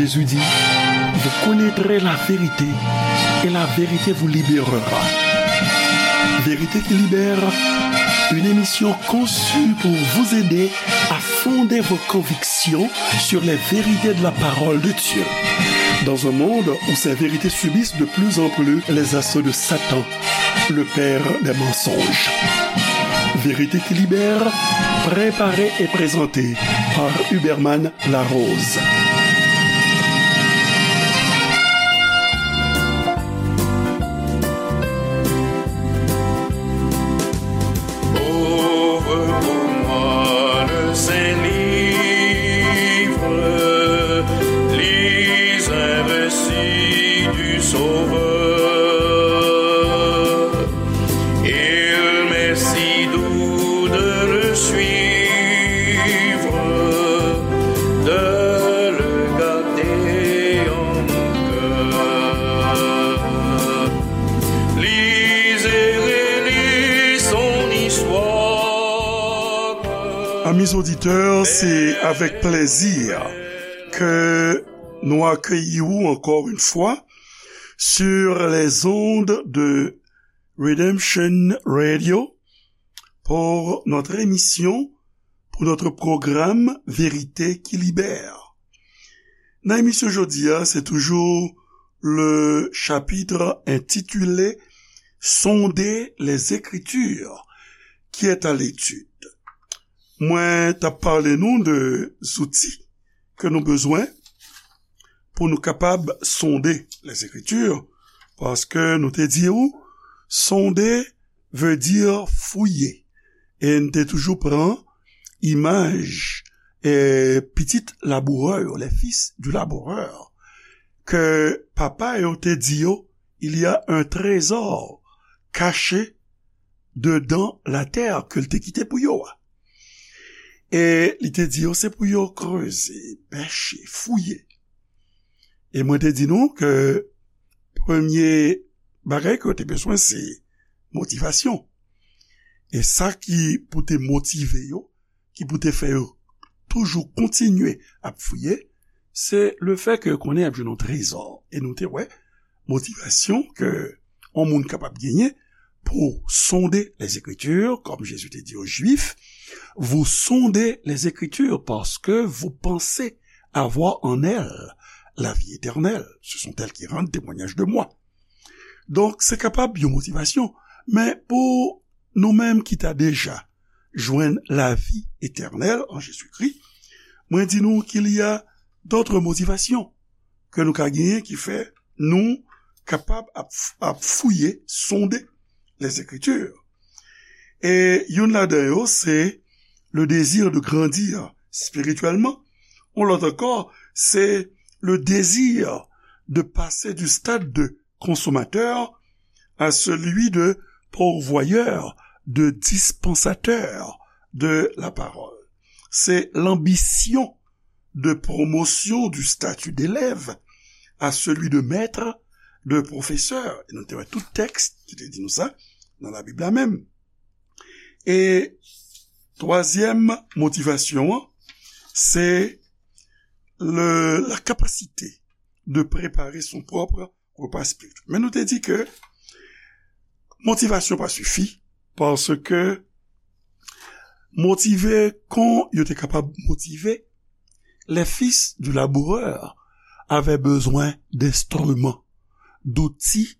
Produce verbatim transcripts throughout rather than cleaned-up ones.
Jésus dit, vous connaîtrez la vérité et la vérité vous libérera. Vérité qui libère, une émission conçue pour vous aider à fonder vos convictions sur les vérités de la parole de Dieu. Dans un monde où ces vérités subissent de plus en plus les assauts de Satan, le père des mensonges. Vérité qui libère, préparée et présentée par Huberman Larose. Ouvre pour moi le saint livre, lis un récit du Sauveur. Il m'est si doux de le suivre, de le garder en mon cœur. Lis et relis son histoire. Amis auditeurs, c'est avec plaisir que nous accueillons encore une fois sur les ondes de Redemption Radio pour notre émission, pour notre programme Vérité qui libère. Nan emisyon jodi a, se toujou le chapitre intitulé Sonder les Écritures qui est à l'étude. Mwen t ap pale nou de zouti ke nou bezwen pou nou kapab sonde Lèzekritir, paske nou te di w, sonde veut dire fouiller. E n te toujou pran imaj, e, pitit labourè yo, les fils du laboureur, ke papa yo te di yo, il y a un trésor caché dedans la terre, ke l te kite pou yo a. E li te di yo, se pou yo kreze, pèche, fouye. E mwen te di nou ke premye bagay ke yo te bezwen, se motivasyon. E sa ki pou te motive yo, ki pou te fè yo toujou kontinye ap fouye, se le fè ke yo konnen y ap jwenn yon trezò. E nou te wè motivasyon ke yon moun kapab genyen pour sonder les Écritures, comme Jésus te di aux Juifs, vous sondez les Écritures parce que vous pensez avoir en elles la vie éternelle. Ce sont elles qui rendent témoignage de moi. Donk, se kapab yon motivasyon, men pou nou menm ki ta deja jwenn lavi etènèl an Jezikri, mwen di nou qu'il y a d'autres motivations ke nou ka genyen ki fè nou kapab ap, ap fouye, sonde les Écritures. E youn ladan yo, se le désir de grandir spirituellement. Yon lòt ankò, se le désir de passer du stade de consommateur à celui de pourvoyeur, de dispensateur de la parole. Se l'ambition de promotion du statut d'élève à celui de maître, de professeur. E nou te wè tout tèks ki te di nou sa nan Labib la menm. E twazyèm motivasyon an, se le, la capacité de préparer son propre repas spirituel. Men nou te di ke motivasyon pa sifi, paske motive kon yo te kapab motive, les fils du laboureur avaient besoin d'instruments, d'outils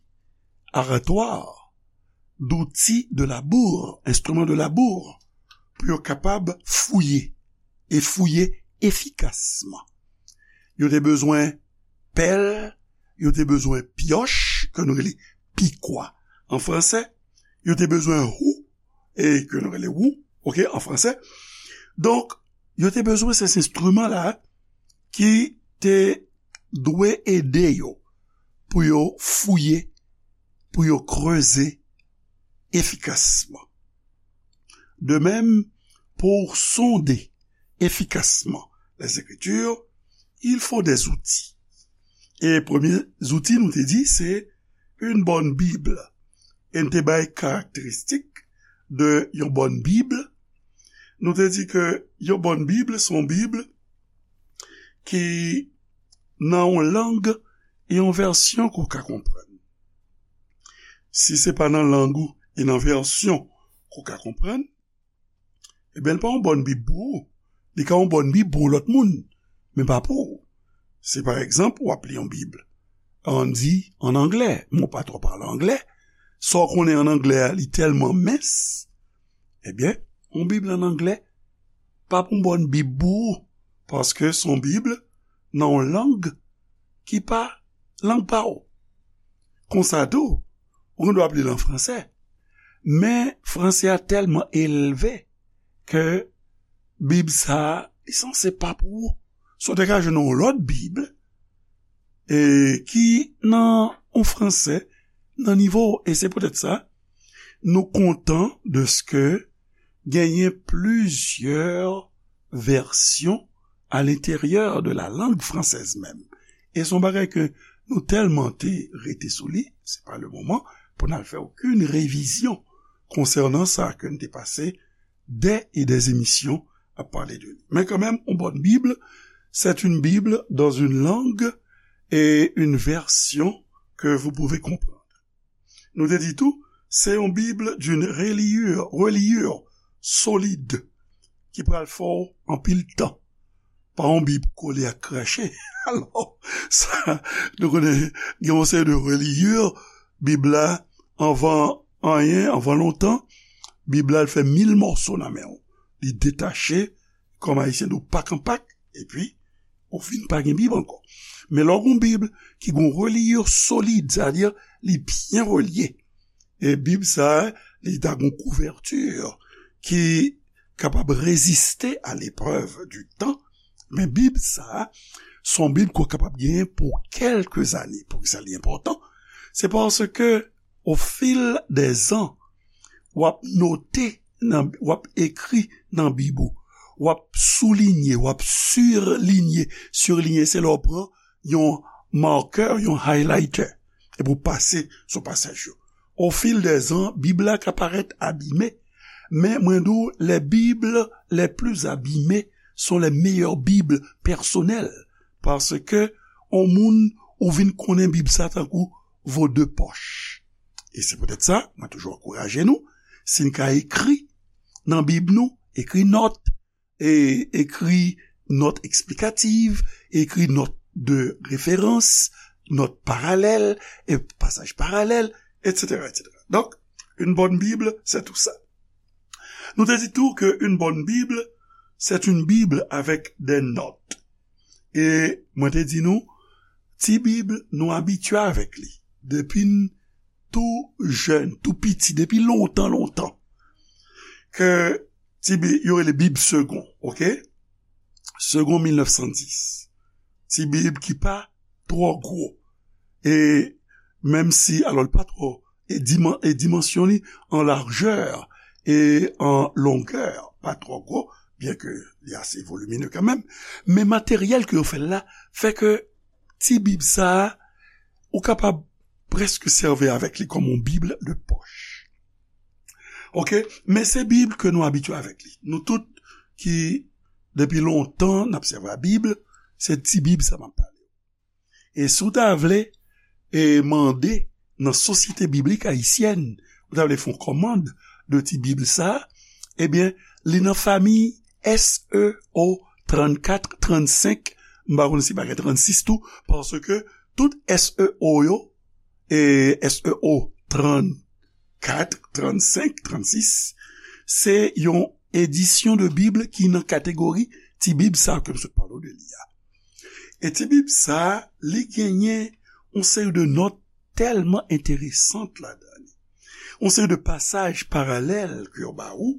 aratoires, d'outils de labour, instruments de labour, pou yo kapab fouye, e fouye efikasman. Yo te bezwen pèl, yo te bezwen pyòch, ke nou rele pikwa an fransè, yo te bezwen wou, e ke nou rele wou, oke, an fransè. Donk, yo te bezwen se enstriman la ki te dwe ede yo pou yo fouye, pou yo kreze efikasman. De même, pour sonder efficacement les Écritures, il faut des outils. E premye zouti nou te di, se une bonne Bible. E n te bay karakteristik de yon bòn Bib. Nou te di ke yon bòn Bib, se yon Bib ki nan yon lang e yon vèsyon ke w ka konprann. Si se pa nan lang ou e nan vèsyon ke w ka konprann, ebyen, li pa yon bòn Bib pou ou. Li ka yon bòn Bib pou yon lòt moun, men pa pou ou. Si, pa egzanp, w ap li yon Bib, ann di, ann anglè, men w pa twò pale anglè, sa w konnen ann anglè a, li tèlman mens, ebyen, yon Bib ann anglè pa pou yon bòn Bib pou ou, paske se yon Bib nan yon lang ki pa lang pa w. Konsa tou, ou gen dwa ap li l an fransè, men fransè a tèlman elve ke Bib sa a, li sanse pa pou ou. Si w te ka jwenn yon lòt Bib, e ki nan yon fransè nan nivo w. E se poutèt sa, nou kontan de ce que genyen plizyè vèsyon à l'intérieur de la langue française même. E se yon bagay ke nou tèlman te rete sou li, se pa le moman pou n al fè okenn revizyon konsènan sa ke n te pase dè e dè emisyon ap pale de li. Men kanmenm, yon bòn Bib, c'est une Bible dans une langue et une version que vous pouvez comprendre. Nou te di tou, se yon Bib d'une reliure, reliure solide ki pral fè w anpil tan. Pa yon Bib kole ak krache. Alò, sa, nou konnen, gen yon seri de reliure, Bib la, anvan anyen, anvan lontan, Bib la, l fè mil mòso nan men w. Li detache, kòm Ayisyen di w, pak an pak, epi ou fin pa gen Bib ankò. Men lè w gen yon Bib ki gen yon reliure solid, sa vle di li byen relye, e Bib sa a, li ta gen yon kouvèti ki kapab reziste à l'épreuve du temps, men Bib sa a, se yon Bib ke w kapab genyen pou kèlke zane. Poukisa li enpòtan? Se paske, au fil des ans, w ap note, nan, w ap ekri nan Bib ou, w ap soulinye, w ap sirlinye. Sirlinye, se lè w pran yon makè, yon highlighter, epi w pase sou pasaj yo. Au fil des ans, Bib la ka parèt abime, men mwen di w, les Bibles les plus abîmées sont les meilleures Bibles personnelles, paske yon moun ou vin konnen Bib sa tankou vo de pòch. E se poutèt sa, mwen toujou ankouraje nou, si n ka ekri nan Bib nou, ekri nòt, e ekri nòt eksplikativ, ekri nòt de referans, nòt paralèl, e pasaj paralèl, etsetera, etsetera. Donc, une bonne Bible, c'est tout ça. Nou te di tou ke une bonne Bible, c'est une Bible avec des notes. E mwen te di nou, ti Bib, nou abitye avèk li. Depi n tou jèn, tou piti, depi lontan, lontan, ke ti Bib, yo rele Bib Segond, oke? Segond mil nèf san dis. Ti Bib ki pa twò gwo. E menm si, alò, li pa twò, e diman-, e dimansyon li an lajè e an longè pa twò gwo, byen ke li ase volimine kanmenm, men materyèl ke yo fè l la fè ke ti Bib sa a, ou kapab prèske sèvi avèk li kòm yon Bib de pòch. Oke? Men se Bib ke nou abitye avèk li. Nou tout ki, depi lontan, n ap sèvi a Bib, se ti Bib sa m ap pale. E si w ta vle, e mande nan Sosyete Biblik Ayisyèn, ou ta vle fè yon kòmand de ti Bib sa, ebyen, li nan fami S E O trannkat, trannsenk, m pa konn si pa gen trannsis tou, paske tout S E O yo, e S E O trannkat, trannsenk, trannsis, se yon edisyon de Bib ki nan kategori ti Bib sa ke m sot pale w de li a. E ti Bib sa, li genyen yon seri de nòt tèlman enteresan ladan li. Yon seri de pasaj paralèl ke yo ba ou,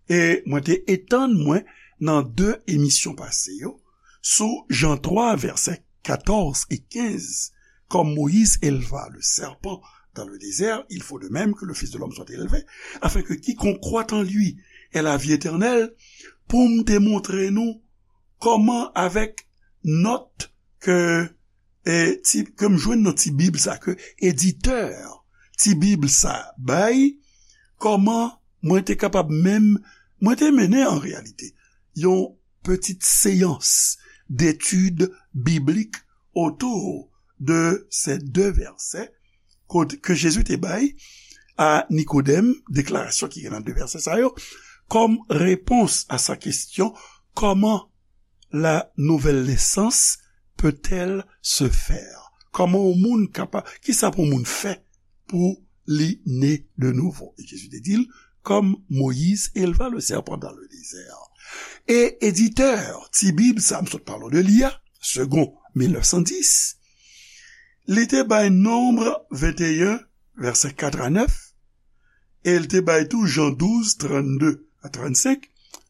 e mwen te etann mwen nan de emisyon pase yo sou Jan twa, vèsè katòz e kenz, comme Moïse éleva le serpent dans le désert, il faut de même que le Fils de l'homme soit élevé, afin que quiconque croit en lui ait la vie éternelle, pou m te montre nou kòman avèk nòt ke, e, ti, ke m jwenn nan ti Bib sa, ke editè ti Bib sa bay, kòman mwen te kapab menm, mwen te mennen an reyalite yon petite séance d'étude biblique autour de ces deux versets ke Jezi te bay a Nikodèm, deklarasyon ki gen nan de vèsè sa yo, kòm repons a sa kesyon, comment la nouvelle naissance peut-elle se faire? Kòman yon moun kapab, kisa pou yon moun fè pou li ne de nouvo? E Jezi te di l, comme Moïse éleva le serpent dans le désert. E editè ti Bib sa m sot pale w de li a, Segond mil nèf san dis, li te bay Nonb venteyen, vèsè kat a nèf, e l te bay tou Jan douz, trannde a trannsenk.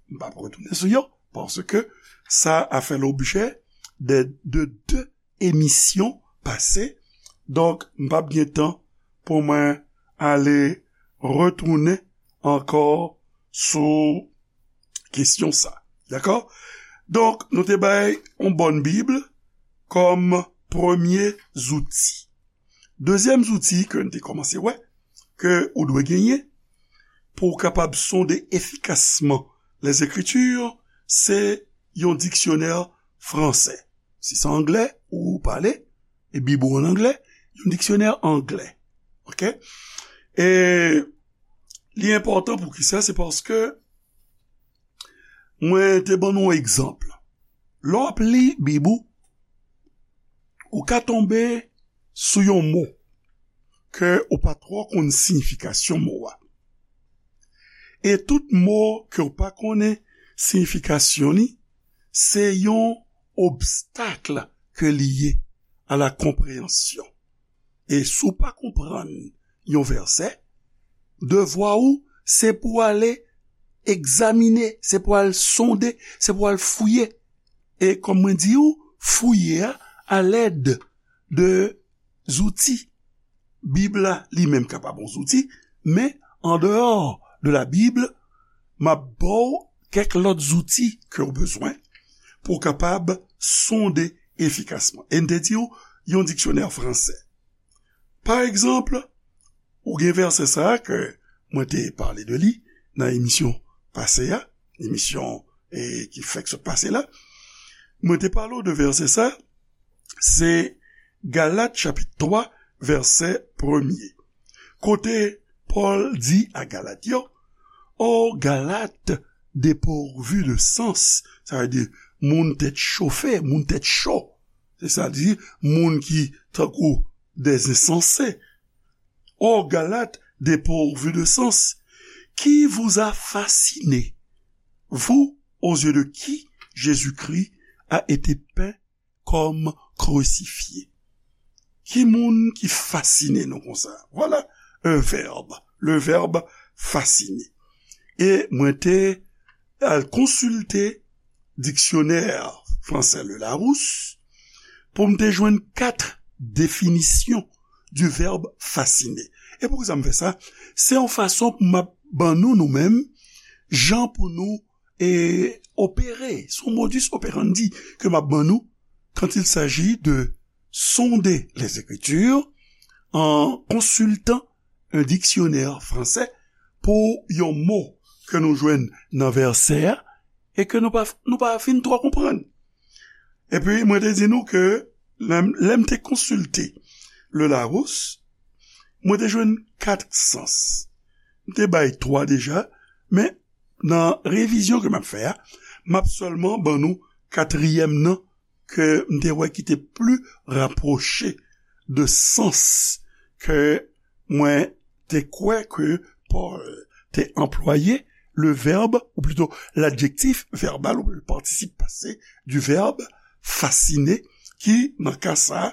M p ap retounen sou yo, paske sa a fè lobjè de, de de emisyon pase. Donk, m p ap gen tan pou mwen ale retounen ankò sou kesyon sa. Dakò? Donk, nou te bay yon bòn Bib kòm premye zouti. Dezyèm zouti ke n te kòmanse wè, ke ou dwe genyen pou w kapab sonde efikasman Lèzekriti, se yon diksyonè fransè. Si se anglè ou pale, e Bib ou an anglè, yon diksyonè anglè. Oke? E li enpòtan pou kisa? Se paske mwen te ban nou yon egzanp. Lè w ap li Bib ou, ou ka tonbe sou yon mo ke ou pa twò konn siyifikasyon mo a. E tout mo ke w pa konnen siyifikasyon li, se yon obstak ke li ye a la konpreyansyon. E si w pa konprann yon vèsè, devwa ou, se pou w ale egzamine, se pou w al sonde, se pou w al fouye. E kòm mwen di w, fouye a alèd de zouti. Bib la, li menm, kapab yon zouti, men andeyò de la Bib, m ap ba w kèk lòt zouti ke w bezwen pou w kapab sonde efikasman. E n te di w, yon diksyonè fransè. Pa egzanp, ou gen vèsè sa a ke mwen te pale de li nan emisyon pase a, emisyon, e, ki fèk sot pase la. Mwen te pale w de vèsè sa, se Galat chapit twa, vèsè premye. Kote Pòl di a Galat yo, O Galat depourvu de sens, sa vle di moun tèt chofe, moun tèt cho. Se sa l di, moun ki tankou des insensés. O Galates dépourvus de sens, qui vous a fasciné, vous aux yeux de qui Jésus-Christ a été peint comme crucifié? Ki moun ki fasine nou konsa? Voilà un verbe, le verbe fasciner. E mwen te al konsilte diksyonè fransè Le Larousse pou m te jwenn kat definisyon du verbe fasciner. E poukisa m fè sa? Se yon fason pou m ap ban nou, nou menm, jan pou nou, e, opere. Se yon modus operandi ke m ap ban nou quand il s'agit de sonder les Écritures en consultant un dictionnaire français pou yon mo ke nou jwenn nan vèsè a e ke nou pa, nou pa fin twò konprann. Epi, mwen te di nou ke lè m, lè m te konsilte Le Larousse, mwen te jwenn kat sans. M te bay twa deja, men nan revizyon ke m ap fè a, m ap sèlman ban nou katriyèm nan ke m te wè ki te pli rapwoche de sans ke mwen te kwè ke Pòl te anplwaye, le verbe, ou plito l'adjectif verbal, ou le participe passé du verbe fasciner, ki, nan ka sa,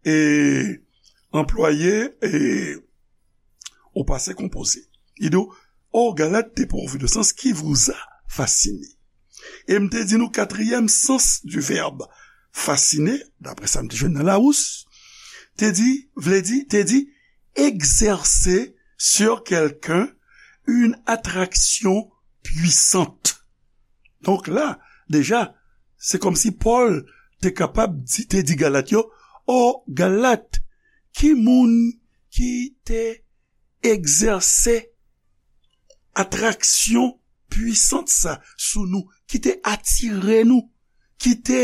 e anplwaye, e au passé composé. Li di w, O Galates dépourvus de sens, qui vous a fasciné? E m te di nou katriyèm sans du verbe fasciner, daprè sa m te jwenn nan Larousse, te di, vle di, te di, exercer sur quelqu'un une attraction puissante. Donk la, deja, se kòmsi Pòl te kapab di, te di Galat yo, O Galat, ki moun ki te egzèse atraksyon pwisant sa sou nou, ki te atire nou, ki te,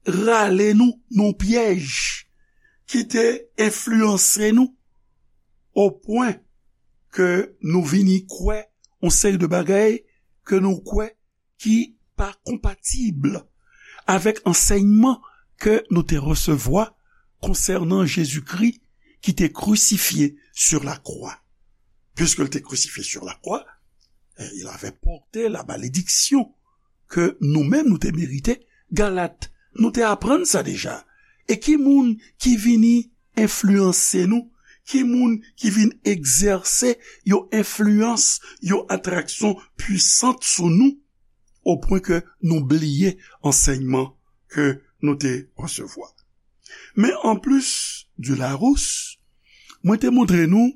rale nou nan pyèj, ki te enfliyanse nou, o pwen ke nou vini kwè yon seri de bagay ke nou kwè ki pa konpatib avèk ansèyman ke nou te resevwa konsènan Jezikri ki te crucifié sur la croix. Puisque il était crucifié sur la croix, il avait porté la malédiction que nous-mêmes nous te mérité. Galat, nou te aprann sa deja. E ki moun ki vini enfliyanse nou? Ki moun ki vin egzèse yon enfliyans, yon atraksyon pwisant sou nou, o pwen ke nou bliye ansèyman ke nou te resevwa? Men anplis di Larousse, mwen te montre nou,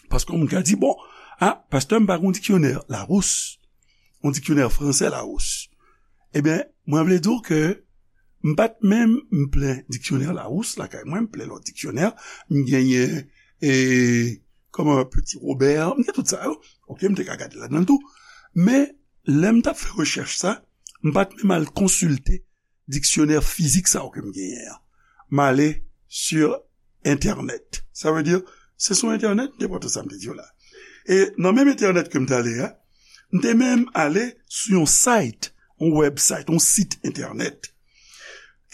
paske yon moun ka di, bon, a, pastè, m pa gen diksyonè Larousse, yon diksyonè fransè Larousse. Ebyen, mwen vle di w ke m pa t menm m plen diksyonè Larousse lakay mwen, m plen lòt diksyonè, m genyen, e, kòman, Petit Robert, m gen tout sa yo. Oke, m te ka gade ladan l tou. Men, lè m t ap fè rechèch sa, m pa t menm al konsilte diksyonè fizik sa yo ke m genyen an. M ale sur Internet. Sa vle di, se sou Internet, m te pran tout sa m te di w la. E nan menm Internet ke m t ale a, m te menm ale sou yon site, yon website, yon sit Internet,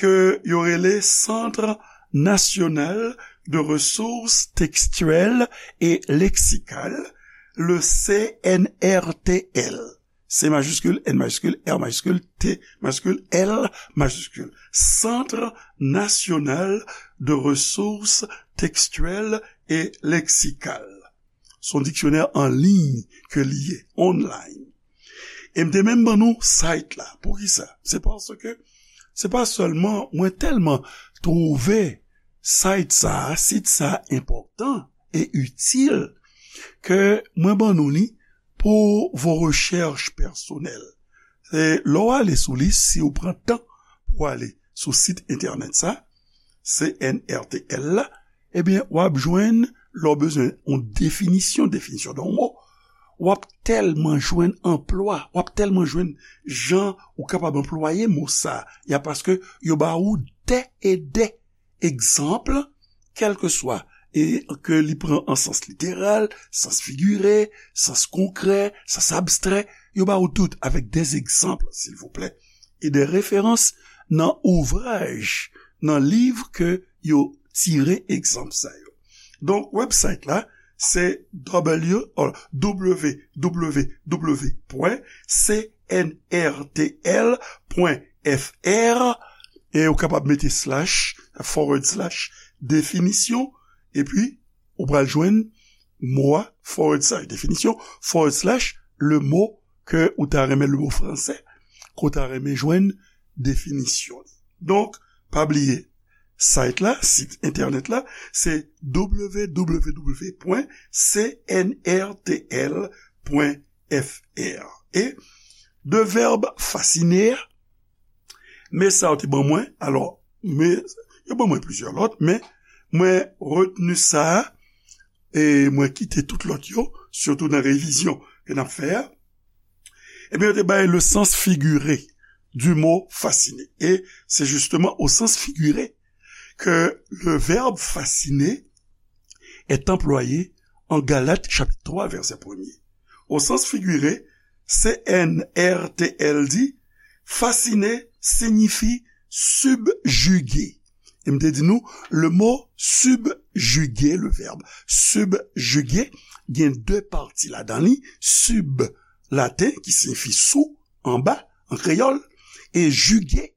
ke yo rele Centre National de Ressources Textuelles et Lexicales, le C N R T L. C majiskil, N majiskil, R majiskil, T majiskil, L majiskil. Centre National de Ressources Textuelles et Lexicales. Se yon diksyonè an liy ke li ye, online. E m te menm ban nou site la. Poukisa? Se paske se pa sèlman mwen tèlman twouve site sa a, sit sa a enpòtan e itil ke mwen ban nou li pour vos recherches personnelles. E lè w ale sou li, si w pran tan pou w ale sou sit entènèt sa, C N R T L la, ebyen, w ap jwenn, lè w bezwen yon definisyon, definisyon de yon mo, w ap tèlman jwenn anplwa, w ap tèlman jwenn jan ou kapab anplwaye mo sa a, paske yo ba ou dè e dè egzanp, kèlkeswa, e ke li pran an sans literal, sans figire, sans konkrè, sans abstrè, yo ba ou tout avèk dè egzanp, silvouplè, e dè referans nan ouvraj, nan liv ke yo tire egzanp sa yo. Donk, website la, se W, oh, W W W pwen C N R T L pwen F R, e ou kapab mete slash, forward slash, definisyon, epi ou pral jwenn mo a, forward slash, definisyon, forward slash, le mot ke ou ta renmen, le mot fransè, ke ou ta renmen jwenn definisyon li. Donk, pa bliye, site la, sit entènèt la, se W W W pwen C N R T L pwen F R. E de vèb fasine, men sa yo te ban mwen, alò, men yo ban mwen plizyè lòt, men mwen retni sa a, e mwen kite tout lòt yo, sitou nan revizyon ke n ap fè a. Ebyen, yo te bay le sens figuré du mot fasciné. Et c'est justement au sens figuré que le verbe fasciner est employé en Galates chapitre trois, verset premier. Au sens figuré, C N R T L dit, fasciner signifie subjuguer. E m te di nou, le mo subjuguer, le verbe subjuguer, gen de pati ladan li, sub laten, ki siyifi sou, anba, an kreyòl, e juguer,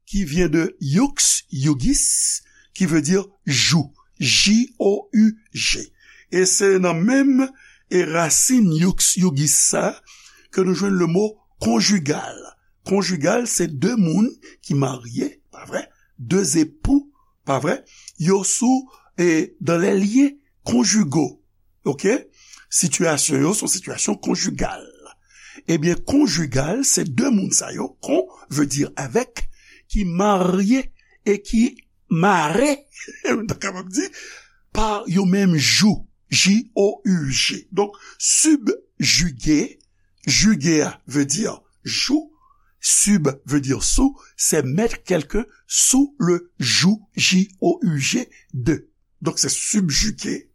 qui vient de jux, jugis, qui veut dire joug, J O U G. E se nan menm e rasin jux, jugis sa ke nou jwenn le mo konjigal. Konjigal, se de moun ki marye, pa vre? De zepou, pa vre? Yo sou, e, dans les liens conjugaux. Oke? Sitiyasyon yo se yon sitiyasyon konjigal. Ebyen, konjigal, se de moun sa yo, con veut dire avec, ki marye e ki mare, nou ta kapab di, pa yo menm joug, J O U G. Donk, subjuguer, juguer a vle di joug, Sub veut dire sous, c'est mettre quelqu'un sous le joug, J O U G, de. Donk, se subjuguer.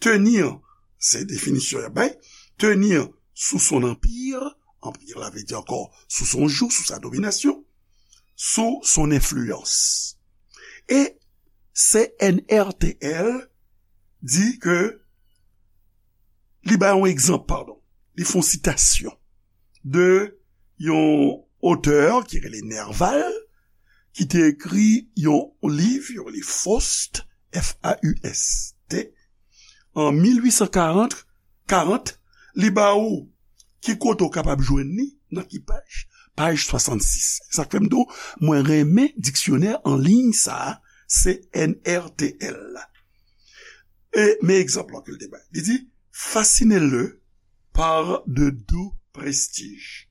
Tenir, se definisyon y ap bay, tenir sous son empire, empire la vle di ankò sous son joug, sous sa domination, sous son influence. E C N R T L di ke li bay yon egzanp, padon, li fè yon sitasyon de yon otè ki rele Nerval, ki te ekri yon liv, yon liv Faust, F A U S T, an mil uit san karant, karant, li ba ou ki kote w kapab jwenn li, nan ki paj, paj swasannsis. Sa k fè m di w, mwen renmen diksyonè an liy sa a, C N R T L la. E, men egzanp lan ke l te bay. Li di, fascinez-le par de doux prestiges.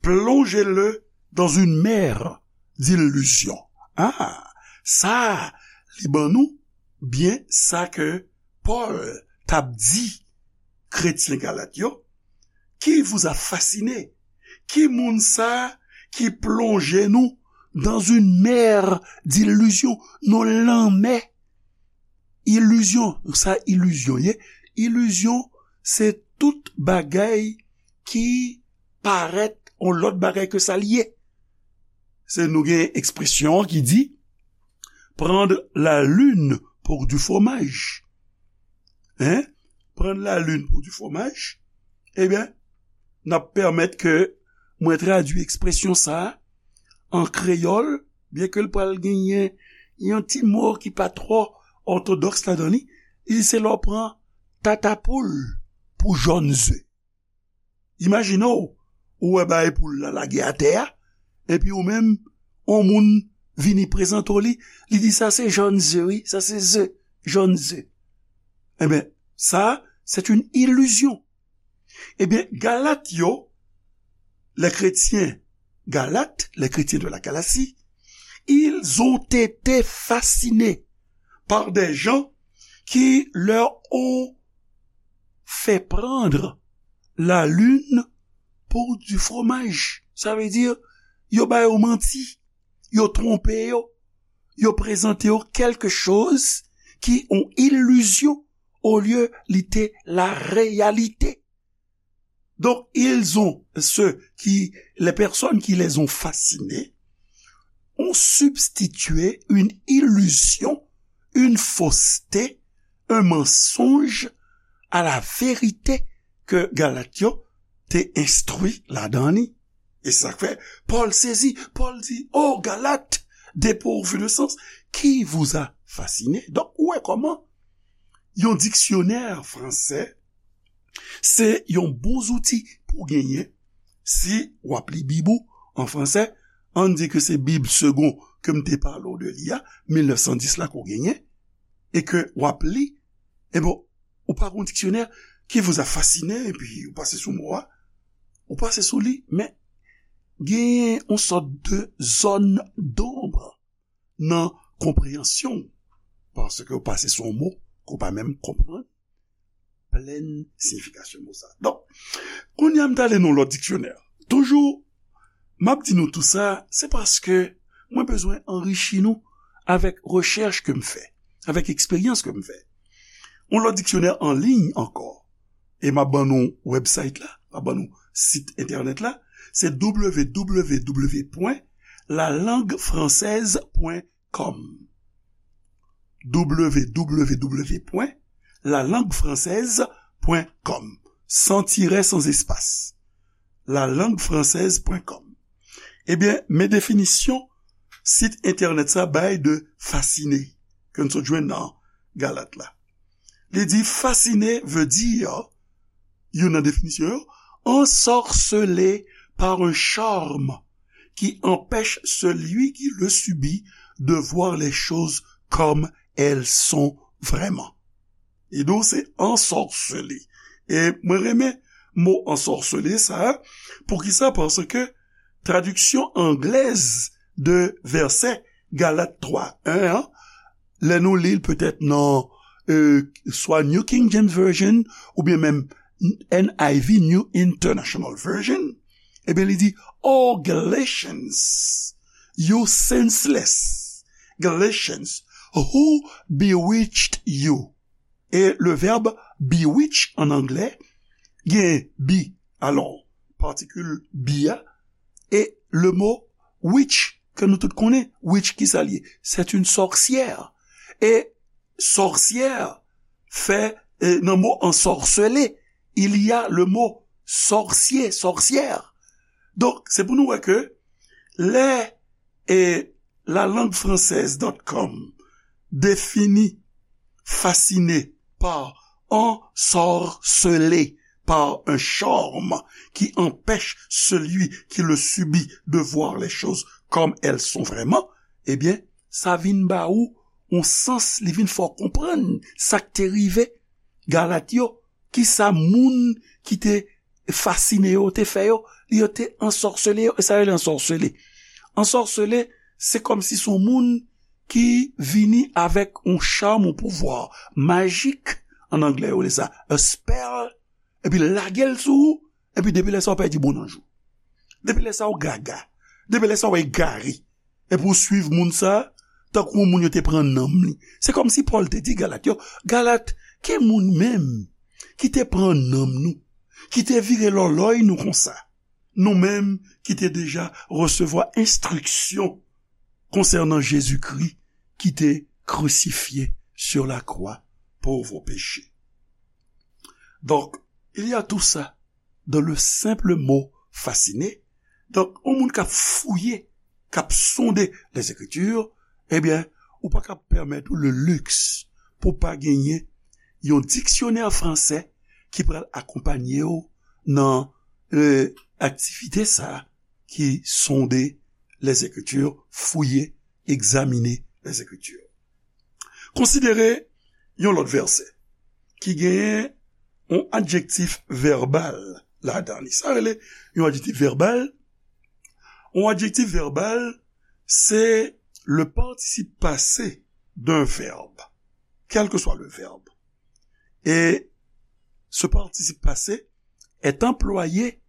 Plongez-le dans une mer d'illusions. Ah, sa, li ban nou byen sa ke Pòl t ap di kretyen Galat yo. Qui vous a fasciné? Ki moun sa ki plonje nou dans une mer d'illusions, nan lanmè ilizyon? Sa ilizyon ye. Ilizyon, se tout bagay ki parèt yon lòt bagay ke sa l ye. Se nou gen ekspresyon an ki di, prendre la lune pour du fromage. Hein? Prendre la lune pour du fromage. Ebyen, n ap pèmèt ke mwen tradui ekspresyon sa a an kreyòl, byen ke l pral genyen yon ti mo ki pa twò òtodòks ladan li. Li se lè w pran tatapoul pou jòn ze. Imajine w, ou wè bagay poul la lage atè a, epi ou menm, yon moun vini prezante w li, li di, sa se jòn ze, wi, sa se ze, jòn ze. Ebyen, sa, c'est une illusion. Ebyen, Galat yo, les chrétiens Galates, les chrétiens de la Galatie, ils ont été fascinés par des gens qui leur ont fait prendre la lune pour du fromage. Sa vle di, yo ba yo manti, yo twonpe yo, yo prezante yo quelque chose ki yon ilizyon olye li te la réalité. Donc, ils ont, ceux qui, les personnes qui les ont fascinés, ont substitué une illusion, une fausseté, un mensonge à la vérité ke Galat yo te enstwi ladan li. E sa k fè Pòl sezi. Pòl di, oh, Galates, dépourvus de sens, qui vous a fasciné? Donk, ou wè kòman yon diksyonè fransè se yon bon zouti pou genyen si w ap li Bib ou an fransè. Ann di ke se Bib Segond ke m te pale w de li a, mil nèf san dis la ke w genyen, e ke w ap li, e bon, ou pa gen yon diksyonè, qui vous a fasciné, epi ou pase sou mo a, ou pase sou li, men genyen yon sòt de zòn donb nan konpreyansyon w, paske w pase sou yon mo ke w pa menm konprann plèn siyifikasyon mo sa. Donk, kounye a m t ale nan lòt diksyonè. Toujou, m ap di nou tou sa, se paske mwen bezwen anrichi nou avèk rechèch ke m fè, avèk eksperyans ke m fè. Yon lòt diksyonè an liy ankò, e m ap ban nou website la, m ap ban nou sit entènèt la, se w w w pwen la langue française pwen com. W w w pwen la langue française pwen com. San tirè, san espas. La langue française pwen com. Ebyen, men definisyon sit entènèt sa bay de fasciner, ke n sot jwenn nan Galat la. Li di, fasciner veut dire, youn nan definisyon yo, ensorcelé par un charme qui empêche celui qui le subit de voir les choses comme elles sont vraiment. E donk, se ensorcelé. E mwen renmen mo ensorcelé sa a. Poukisa? Paske tradiksyon anglèz de vèsè Galat twa en an, lè nou li l petèt nan, euh, swa New King James Version, oubyen menm N I V, New International Version, Ebyen, li di, "Oh, Galatians, you senseless Galatians, who bewitched you?" E le vèb bewitch an anglè, gen be, alò, patikil be a, e le mo witch, ke nou tout konnen, witch, ki sa l ye? C'est une sorcière. E sorcière fè, e, nan mo ensorceler, il y a le mot sorcier, sorcière. Donk, se pou nou wè ke lè, e, la langue française dot com définit fasciné par ensorcelé par un charme qui empêche celui qui le subit de voir les choses comme elles sont vraiment, ebyen, sa vin ba ou yon sans, li vin fè w konprann sa k te rive Galat yo, kisa moun ki te fasine yo te fè yo, yo te ansòsele yo, e sa yo rele ansòsele. Ansòsele, se kòmsi se yon moun ki vini avèk yon cham, yon pouvwa majik, an anglè yo rele sa a spell, epi l lage l sou ou, epi depi lè sa a w pèdi bon nanj ou. Depi lè sa a w gaga. Depi lè sa a w egare. Epi w swiv moun sa a, tankou yon moun yo te pran nanm li. Se kòmsi Pòl te di Galat yo, Galat, ki moun menm ki te pran nanm nou, ki te vire lòlòy nou konsa? Nou menm ki te deja resevwa enstriksyon konsènan Jezikri ki te crucifié sur la croix pour vos péchés. Donc, il y a tout ça dans le simple mot fasciné. Donk, yon moun k ap fouye, k ap sonde Lèzekriti, ebyen, ou pa ka pèmèt ou le luxe pou pa genyen yon diksyonè fransè ki pral akonpanye w nan, e, aktivite sa a ki sonde Lèzekriti, fouye, egzamine Lèzekriti. Konsidere yon lòt vèsè ki genyen yon adjektif vèbal ladan li. Sa rele yon adjektif vèbal. Yon adjektif vèbal, se le participe passé d'un verbe, quel que soit le verbe. Et ce participe passé est employé,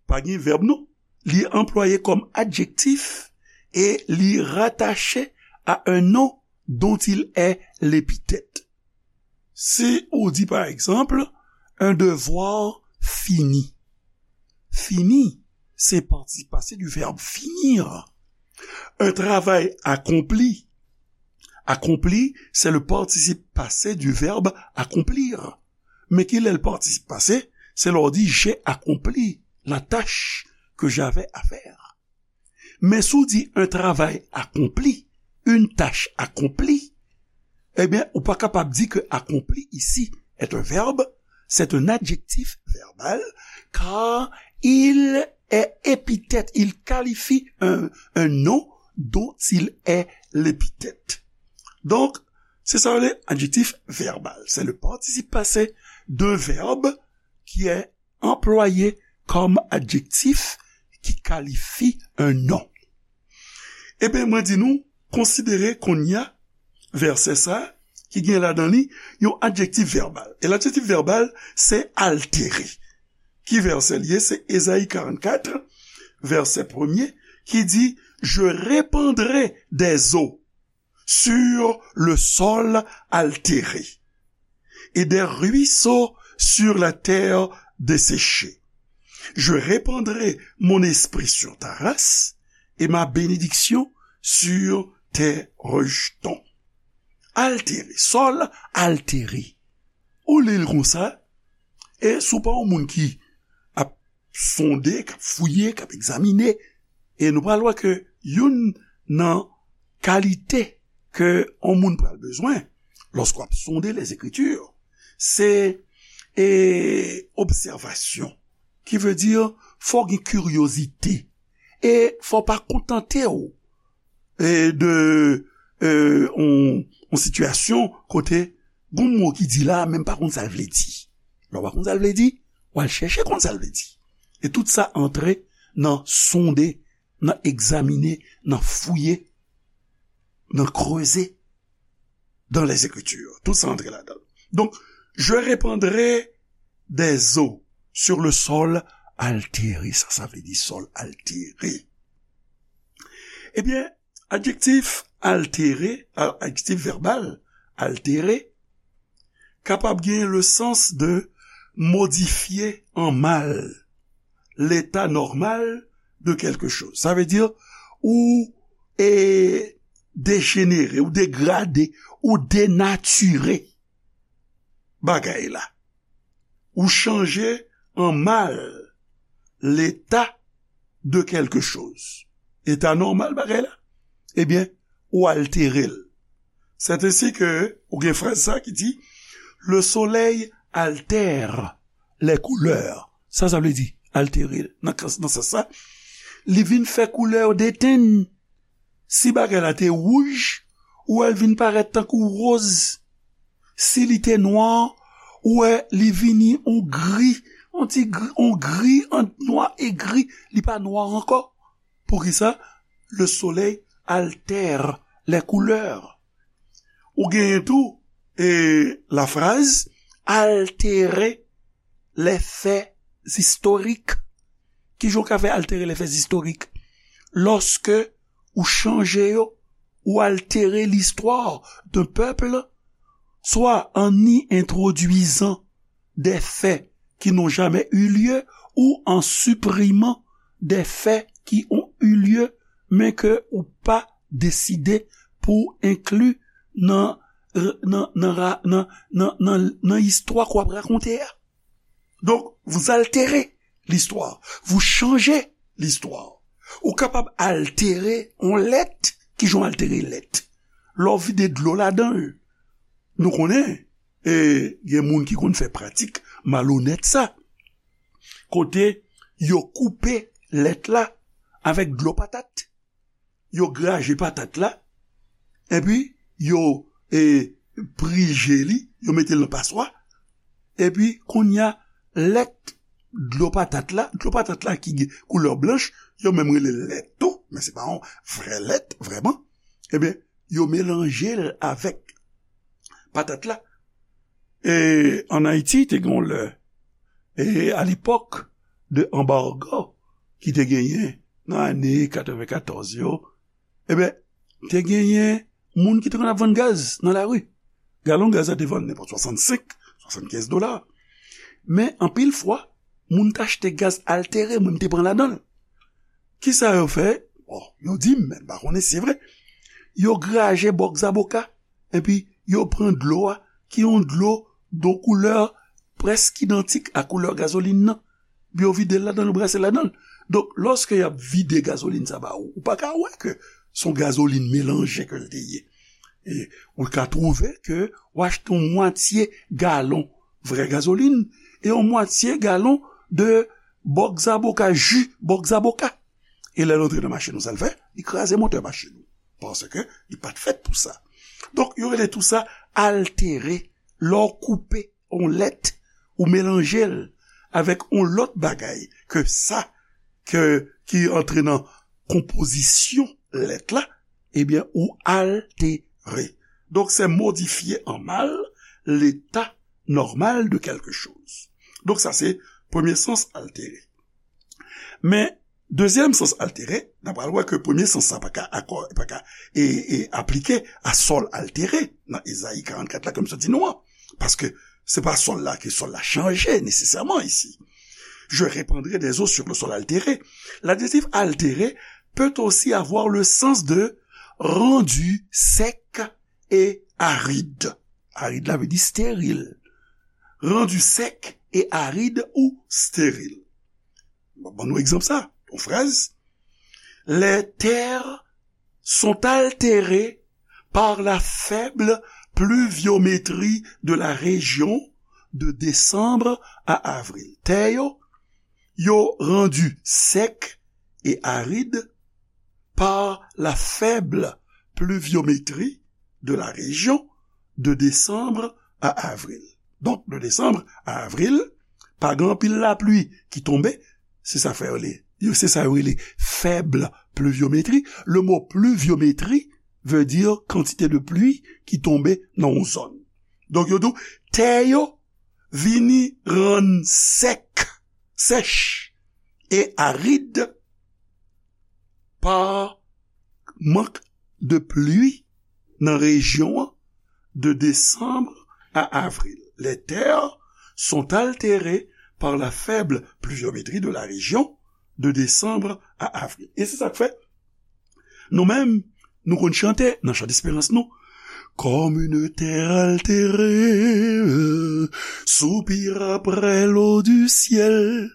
pa gen vèb non, li anplwaye kòm adjektif e li rattaché à un nom dont il est l'épithète. Si ou di, par exemple, un devoir fini. Fini, se participe passé du verbe finir. Un travail accompli. Accompli, c'est le participe passé du verbe accomplir. Men ki lè l participe passé? Se lè w di, j'ai accompli la tâche que j'avais à faire. Men si w di un travail accompli, une tâche accomplie, ebyen, ou pa kapab di ke accompli ici est un verbe, c'est un adjectif verbal, car il est épithète, il qualifie un, un nom dont il est l'épithète. Donc, c'est ça l'adjectif verbal. C'est le participe passé d'un verbe qui est employé comme adjectif qui qualifie un nom. Ebyen, mwen di nou, konsidere kounye a vèsè sa a ki gen ladan li yon adjektif vèbal. E ladjektif vèbal, se altere. Ki vèsè l ye? Se Ezayi karannkat, vèsè premye, ki di, Je répandrai des eaux sur le sol altéré et des ruisseaux sur la terre desséchée. Je répandrai mon esprit sur ta race et ma bénédiction sur tes rejetons. Altere, sòl altere. Ou li l konsa, e si w pa yon moun ki ap sonde, k ap fouye, k ap egzamine, e nou pral wè ke youn nan kalite ke yon moun pral bezwen lòske w ap sonde Lèzekriti, se, e, obsèvasyon, ki vle di fò w gen kiryozite, e fò w pa kontante w e, de, e, on, on sitiyasyon kote gon mo ki di la, men m pa konn sa l vle di. Lè w pa konn sa l vle di, w al chèche konn sa l vle di. E tout sa antre nan sonde, nan egzamine, nan fouye, nan kreze dans les Écritures. Tout sa antre ladan l. Donk, je répandrai des eaux sur le sol altere, sa sa vle di sòl altere. Ebyen, adjektif altere, a- adjektif vèbal altere, kapab gen le sans de modifye an mal leta nòmal de quelque chose. Sa vle di ou e dejenere, ou degrade, ou denatire bagay la. Ou chanje an mal leta de quelque chose. Eta nòmal bagay la, ebyen, ou altere l. C'est ainsi que ou gen fraz sa ki di, le soleil altère les couleurs. Sa sa vle di, altere l. Nan, nan sans sa, li vin fè koulè yo detenn. Si bagay la te wouj, ou wè l vin parèt tankou woz. Si li te nwa, ou wè li vini on gri, on ti gri, on gri ant nwa e gri, li pa nwa ankò. Poukisa? Le soleil altère les couleurs. Ou genyen tou, e, lafraz altere les faits historiques. Kijan w ka fè altere les faits historiques? Lòske ou chanje yo, ou altere l'histoire d'un peuple, soit en y introduisant des faits qui n'ont jamais eu lieu ou en supprimant des faits qui ont eu lieu, men ke ou pa deside pou enkli nan, nan, nan, ra- nan, nan, nan, nan istwa k w ap rakonte a. Donk, vous altérez l'histoire, vous changez l'histoire. Ou kapab altere yon lèt. Kijan w altere lèt? Lè w vide dlo ladan l. Nou konnen, e, gen moun ki konn fè pratik malonèt sa. Kote yo koupe lèt la avèk dlo patat. Yo graje patat la, epi yo, e, prije li, yo mete l nan paswa, epi kounye a, lèt dlo patat la, dlo patat la ki gen koulè blanch, yo menm rele l lèt tou, men se pa yon vrè lèt, vrèman. Ebyen, yo melanje l avèk patat la. E ann Ayiti, te gen yon lè, e a lepòk de anbago ki te genyen nan ane katrevenkatòz yo, ebyen, te genyen moun ki te konn ap vann gaz nan lari. Galon gaz la te vann nenpòt swasannsenk, swasannkenz dola. Men anpil fwa, moun t achte gaz altere, mwen m te pran ladan l. Kisa yo fè? Bon, yo di m, men m pa konnen si se vre. Yo graje bòk zaboka, epi yo pran dlo a, ki yon dlo de koulè prèske idantik a koulè gazolin nan. Epi yo vide l ladan l, yo brase l ladan l. Donk, lòske y ap vide gazolin sa ba ou, ou pa ka wè ke se yon gazolin melanje ke l te ye. E ou ka twouve ke w achte yon mwatye galon vrè gazolin e yon mwatye galon de bòk zaboka, ji bòk zaboka. E lè l antre nan machin ou, sa l fè? Li kraze motè machin ou. Paske li pa t fèt pou sa. Donk, yo rele tou sa altere. Lè w koupe yon lèt, ou melanje l avèk yon lòt bagay ke sa, ke, ki antre nan konpozisyon lèt la, ebyen, ou altere. Donk, se modifye an mal leta nòmal de quelque chose. Donk, sa se premye sans altere. Men, dezyèm sans altere, n a pral wè ke premye sans sa pa ka akò, pa ka, e, e aplike a sòl altere nan Ezayi karannkat la, ke m sot di nou an. Paske se pa sòl la ke sòl la chanje nesesèman isi. Je répandrai des eaux sur le sol altéré. L'adjectif altéré peut aussi avoir le sens de rendu sec et aride. Arid la vle di steril. Rendu sec et aride ou stérile. Bon, ban nou egzanp sa. Yon fraz. Les terres sont altérées par la faible pluviométrie de la région de décembre à avril. Tè yo, yo randu sec et aride par la faible pluviométrie de la région de décembre à avril. Donk, de desanm a avril, pa gen anpil lapli ki tonbe, se sa fè yo le, yo, se sa yo rele faible pluviométrie. Le mo pluviométrie veut dire quantité de pluie ki tonbe nan yon zòn. Donk, yo di w, tè yo vini rann sèk, sèch, et aride par manque de pluie dans la région de décembre à avril. Les terres sont altérées par la faible pluviométrie de la région de décembre à avril. E se sa k fè, nou menm, nou konn chante nan chan desperans nou, Comme une terre altérée soupire après l'eau du ciel.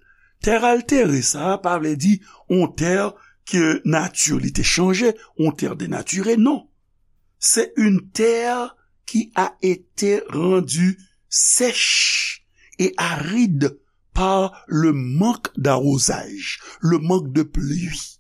Tè altere, sa pa vle di yon tè ke nati li te chanje, yon tè denatire, non. C'est une terre qui a été rendue sèche et aride par le manque d'arrosage, le manque de pluie.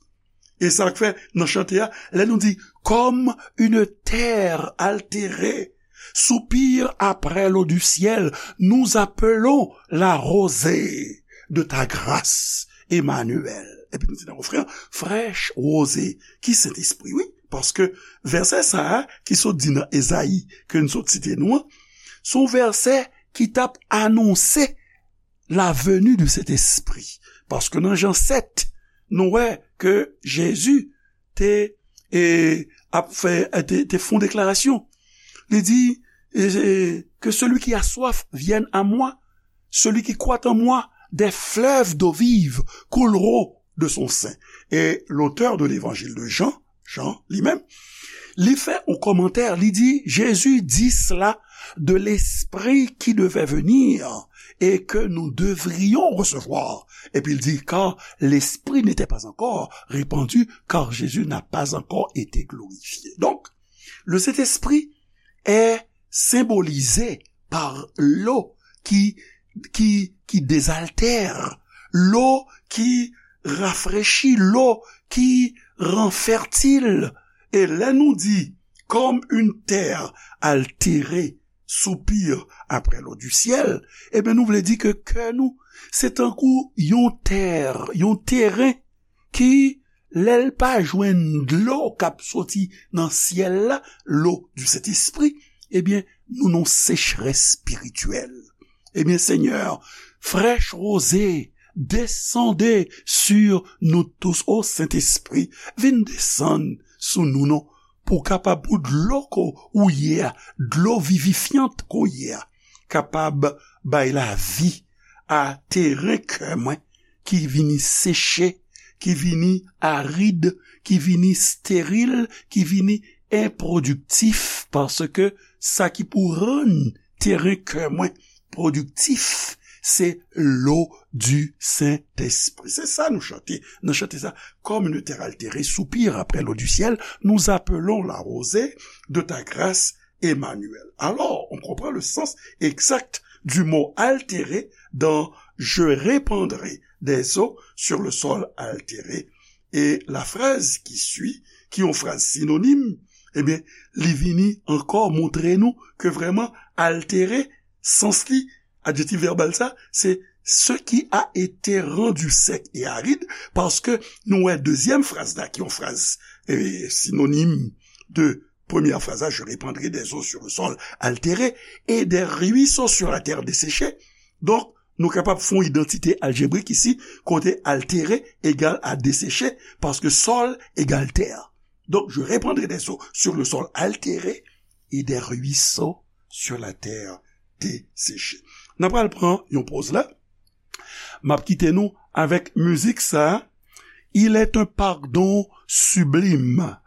E sa k fè nan chante a, lè nou di, Comme une terre altérée soupire après l'eau du ciel, nous appelons la rosée de ta grâce, Emmanuel. Epi nou di nan refren an, Fraîche rosée, ki Sentespri, wi. Paske vèsè sa a, ki sot di nan Ezayi, ke n sot site nou an, se yon vèsè ki t ap anonse la venue du Saint-Esprit. Paske nan Jan sèt, nou wè ke Jezi te, e, ap fè, te, te fè yon deklarasyon. Li di, e, e, Que celui qui a soif vienne à moi, celui qui croit en moi, des fleuves d'eau vive couleront de son sein. Et l'auteur de l'évangile de Jean, Jan li menm, li fè yon kòmantè, li di, Jésus dit cela de l'Esprit qui devait venir et que nous devrions recevoir. Epi l di, car l'Esprit n'était pas encore répandu, car Jésus n'a pas encore été glorifié. Donc, le Saint-Esprit est symbolisé par l'eau qui, qui, qui désaltère, l'eau qui rafraîchit, l'eau qui rend fertile. E lè nou di, comme une terre altérée soupire après l'eau du ciel, ebyen, nou vle di ke kè nou, se tankou yon tè, yon teren ki, lè l pa jwenn dlo k ap soti nan syèl la, l'eau du Saint-Esprit, ebyen, nou nan sechrès espirityèl. Ebyen, Senyè, fraîche rosée, descendez sur nous tous. O Sentespri, vin desann sou nou non, pou w kapab, pou dlo ke w ye a, dlo vivifyant ke w ye a, kapab bay lavi a teren kè mwen ki vini seche, ki vini arid, ki vini steril, ki vini enprodiktif, paske sa ki pou rann teren kè mwen pwodiktif, se l'eau du Saint-Esprit. Se sa nou chante. Nou chante sa, Comme une terre altérée soupire après l'eau du ciel, nous appelons la rosée de ta grâce, Emmanuel. Alors, on comprend le sens exact du mot altéré dans Je répandrai des eaux sur le sol altéré. E la phrase qui suit, ki yon fraz sinonim, ebyen, li vini ankò montre nou ke vrèman altéré, sans li, adjektif vèbal sa, se ce qui a été rendu sec et aride, paske nou wè dezyèm fraz la, ki yon fraz, e, sinonim de premyè fraz la, Je répandrai des eaux sur le sol altéré et des ruisseaux sur la terre desséchée. Donk, nou kapab fè yon idantite aljebrik isi, kote altéré egal a desséché, paske sol egal tè. Donc, je répandrai des eaux sur le sol altéré et des ruisseaux sur la terre desséchée. N ap pral pran yon poz la. M ap kite nou avèk mizik sa a, Il est un pardon sublime.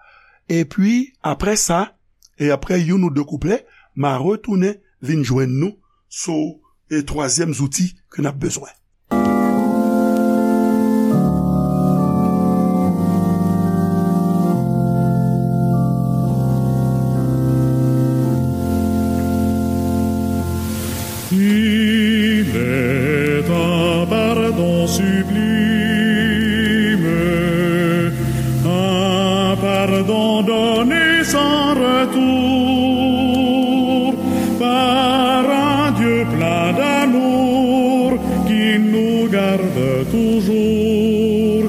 Epi, apre sa, e apre youn ou de kouplè, m a retounen vin jwenn nou sou, e, twazyèm zouti ke n ap bezwen. Il est un pardon sublime, un pardon donné sans retour par un Dieu plein d'amour qui nous garde toujours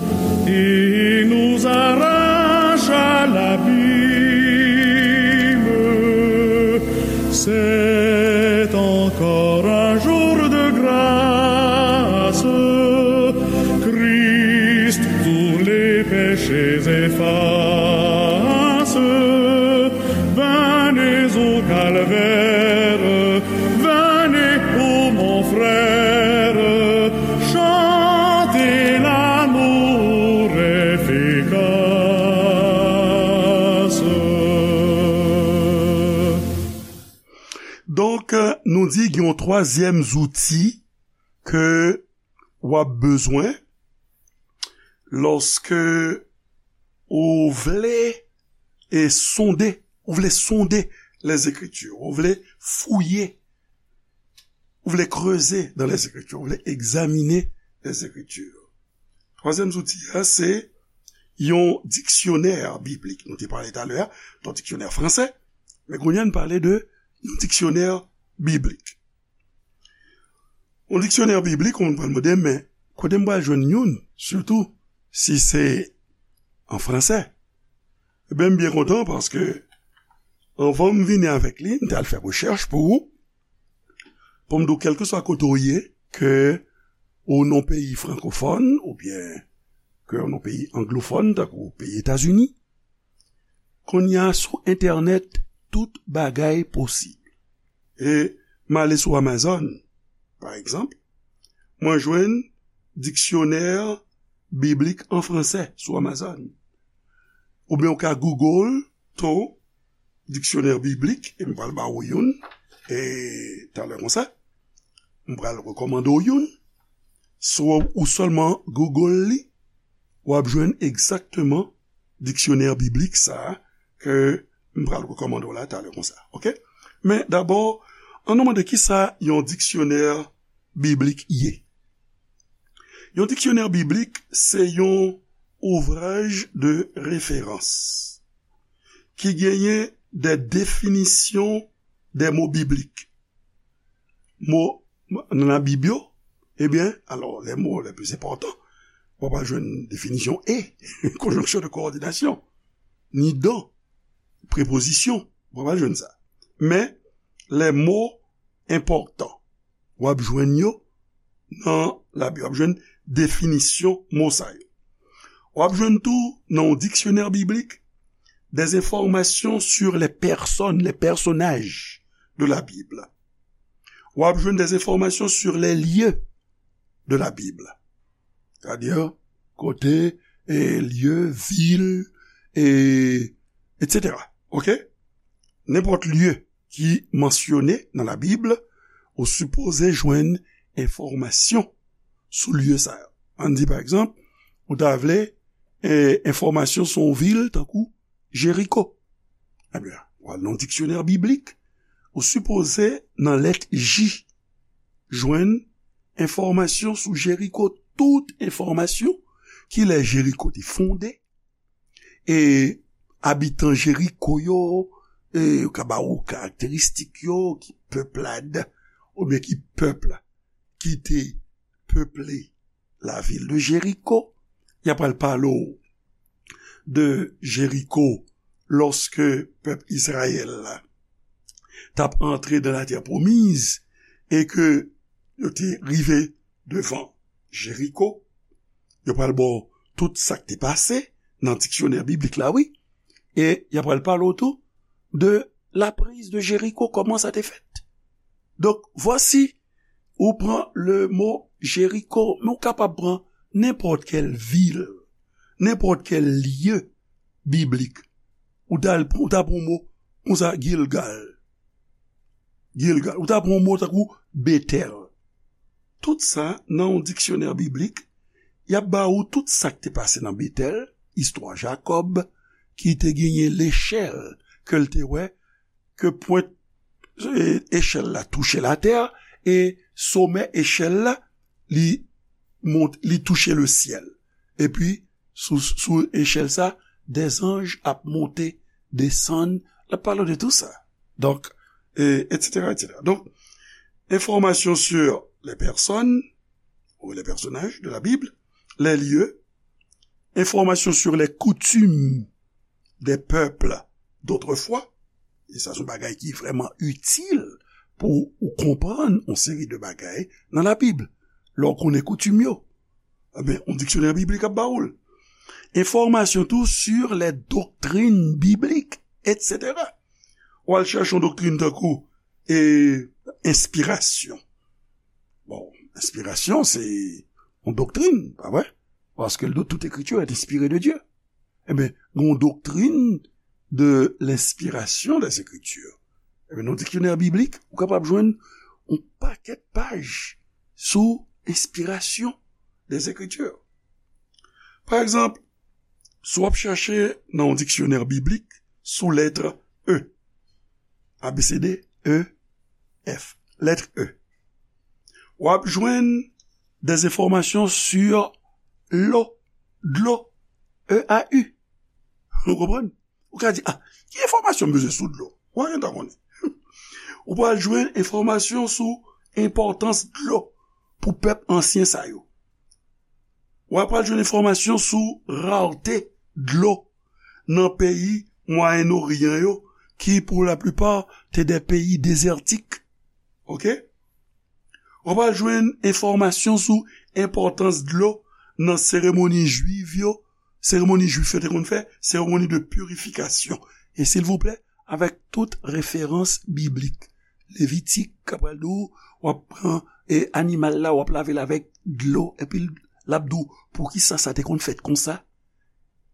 et nous arrache à l'abîme. C'est encore un jour de grâce. Christ Di gen yon twazyèm zouti ke w ap bezwen lòske ou vle e sonde, ou vle sonde les Écritures, ou vle fouye, ou vle kreze dans les Écritures, ou vle egzamine les Écritures. Twazyèm zouti a, se yon diksyonè biblik. Nou te pale talè a, yon diksyonè fransè, men kounye a n pale de yon diksyonè biblik. Yon diksyonè biblik, ou pral mande, men kote m pral jwenn youn, sitou si se an fransè? Ebyen, m byen kontan paske anvan m vini avèk li, m t al fè rechèch pou ou, pou m di w, kèlkeswa kote w ye, ke ou nan peyi frankofòn, oubyen ke ou nan peyi anglofòn, tankou peyi Etazini, kounye a sou entènèt, tout bagay posib. E m ale sou Amazon, pa egzanp, mwen jwenn diksyonè biblik an fransè sou Amazon. Oubyen ou ka Google tou diksyonè biblik, e m pral ba ou youn, e talè konsa, m pral rekòmande w youn. Si w, ou sèlman Google li, w ap jwenn egzakteman diksyonè biblik sa a ke m pral rekòmande w la talè konsa, oke? Men dabò, ann nou mande kisa yon diksyonè biblik ye. Yon diksyonè biblik se yon ouvraj de referans ki genyen de definisyon de mo biblik. Mo nan Labib yo, ebyen, alò, les mots les plus importants, w ap jwenn definisyon et, conjonction de coordination, ni dont, prepozisyon, w ap jwenn sa. Men, les mots importants, w ap jwenn yo nan Labib, w ap jwenn definisyon mo sa yo. W ap jwenn tou nan yon diksyonè biblik des informations sur les personnes, les personnages de la Bible. W ap jwenn des informations sur les lieux de la Bible. Sètadi, kote, e, lye, vil, e, etsetera. Oke? Nenpòt lye ki mansyone nan Labib, ou sipoze jwenn enfòmasyon sou lye sa yo. Ann di, pa egzanp, ou ta vle, e, enfòmasyon sou yon vil tankou Jeriko. Ebyen, w al nan diksyonè biblik, ou sipoze nan lèt J jwenn enfòmasyon sou Jeriko, tout enfòmasyon, kilè Jeriko te fonde, e abitan Jeriko yo, e yo ka ba ou karakteristik yo, ki pèplad, oubyen ki pèp ki te peple la vil de Jeriko. Y ap pral pale w de Jeriko lòske pèp Izrayèl la t ap antre nan latè pwomiz e ke yo te rive devan Jeriko. Yo pral ba w tout sa k te pase nan diksyonè biblik la, wi. E y ap pral pale w tou de la prise de Jéricho, kòman sa te fèt. Donk, vwasi, ou pran le mo Jeriko, men ou kapab pran nenpòt kèl vil, nenpòt kèl lye biblik. Ou ta, ou ta pran mo konsa, Gilgal. Gilgal. Ou ta pran mo tankou Betèl. Tout sa, nan yon diksyonè biblik, y ap ba ou tout sa k te pase nan Betèl, istwa Jakòb, ki te genyen lechèl ke l te wè, ke pwent, e, echèl la touche latè, e somè echèl la, li mont, li touche lesyèl. Epi, sou, sou echèl sa, dèzanj ap monte, desann, l ap pale de tou sa. Donk, e, etsetera, etsetera. Donk, enfòmasyon sur les personnes ou les personnages de la Bible, les lieux, enfòmasyon sur les coutumes des peuples d'autrefois, e sa se yon bagay ki vrèman itil pou ou konprann yon seri de bagay nan Labib. Lè w konnen koutim yo, ebyen, yon diksyonè biblik ap ba ou l. Enfòmasyon tou sur les doctrines bibliques, etsetera. W al chèche yon doktrin tankou, e, enspirasyon. Bon, enspirasyon, se yon doktrin, pa vre? Parce que toute écriture est inspirée de Dieu. Ebyen, gen yon doktrin de l'inspiration des Écritures. Ebyen, nan diksyonè biblik, ou kapab jwenn yon pakèt paj sou enspirasyon des Écritures. Pa egzanp, si w ap chèche nan yon diksyonè biblik sou lèt E, A B C D, E, F, lèt E, w ap jwenn des informations sur l'eau, dlo, E A U. Ou konprann? Ou ka di, ah, ki enfòmasyon m bezwen sou dlo? Ou pa gentan konnen. Ou pral jwenn enfòmasyon sou enpòtans dlo pou pèp ansyen sa yo. Ou pral jwenn enfòmasyon sou rarete dlo nan peyi Mwayen Oryan yo, ki pou laplipa te de peyi dezètik. Oke? Ou pral jwenn enfòmasyon sou enpòtans dlo nan seremoni jwiv yo, seremoni jwif yo te konn fè, seremoni de pirifikasyon. E silvouplè, avèk tout referans biblik. Levitik, k ap pral di w, w ap pran, e, animal la, w ap lave l avèk dlo, epi l ap di w, poukisa sa te konn fèt konsa?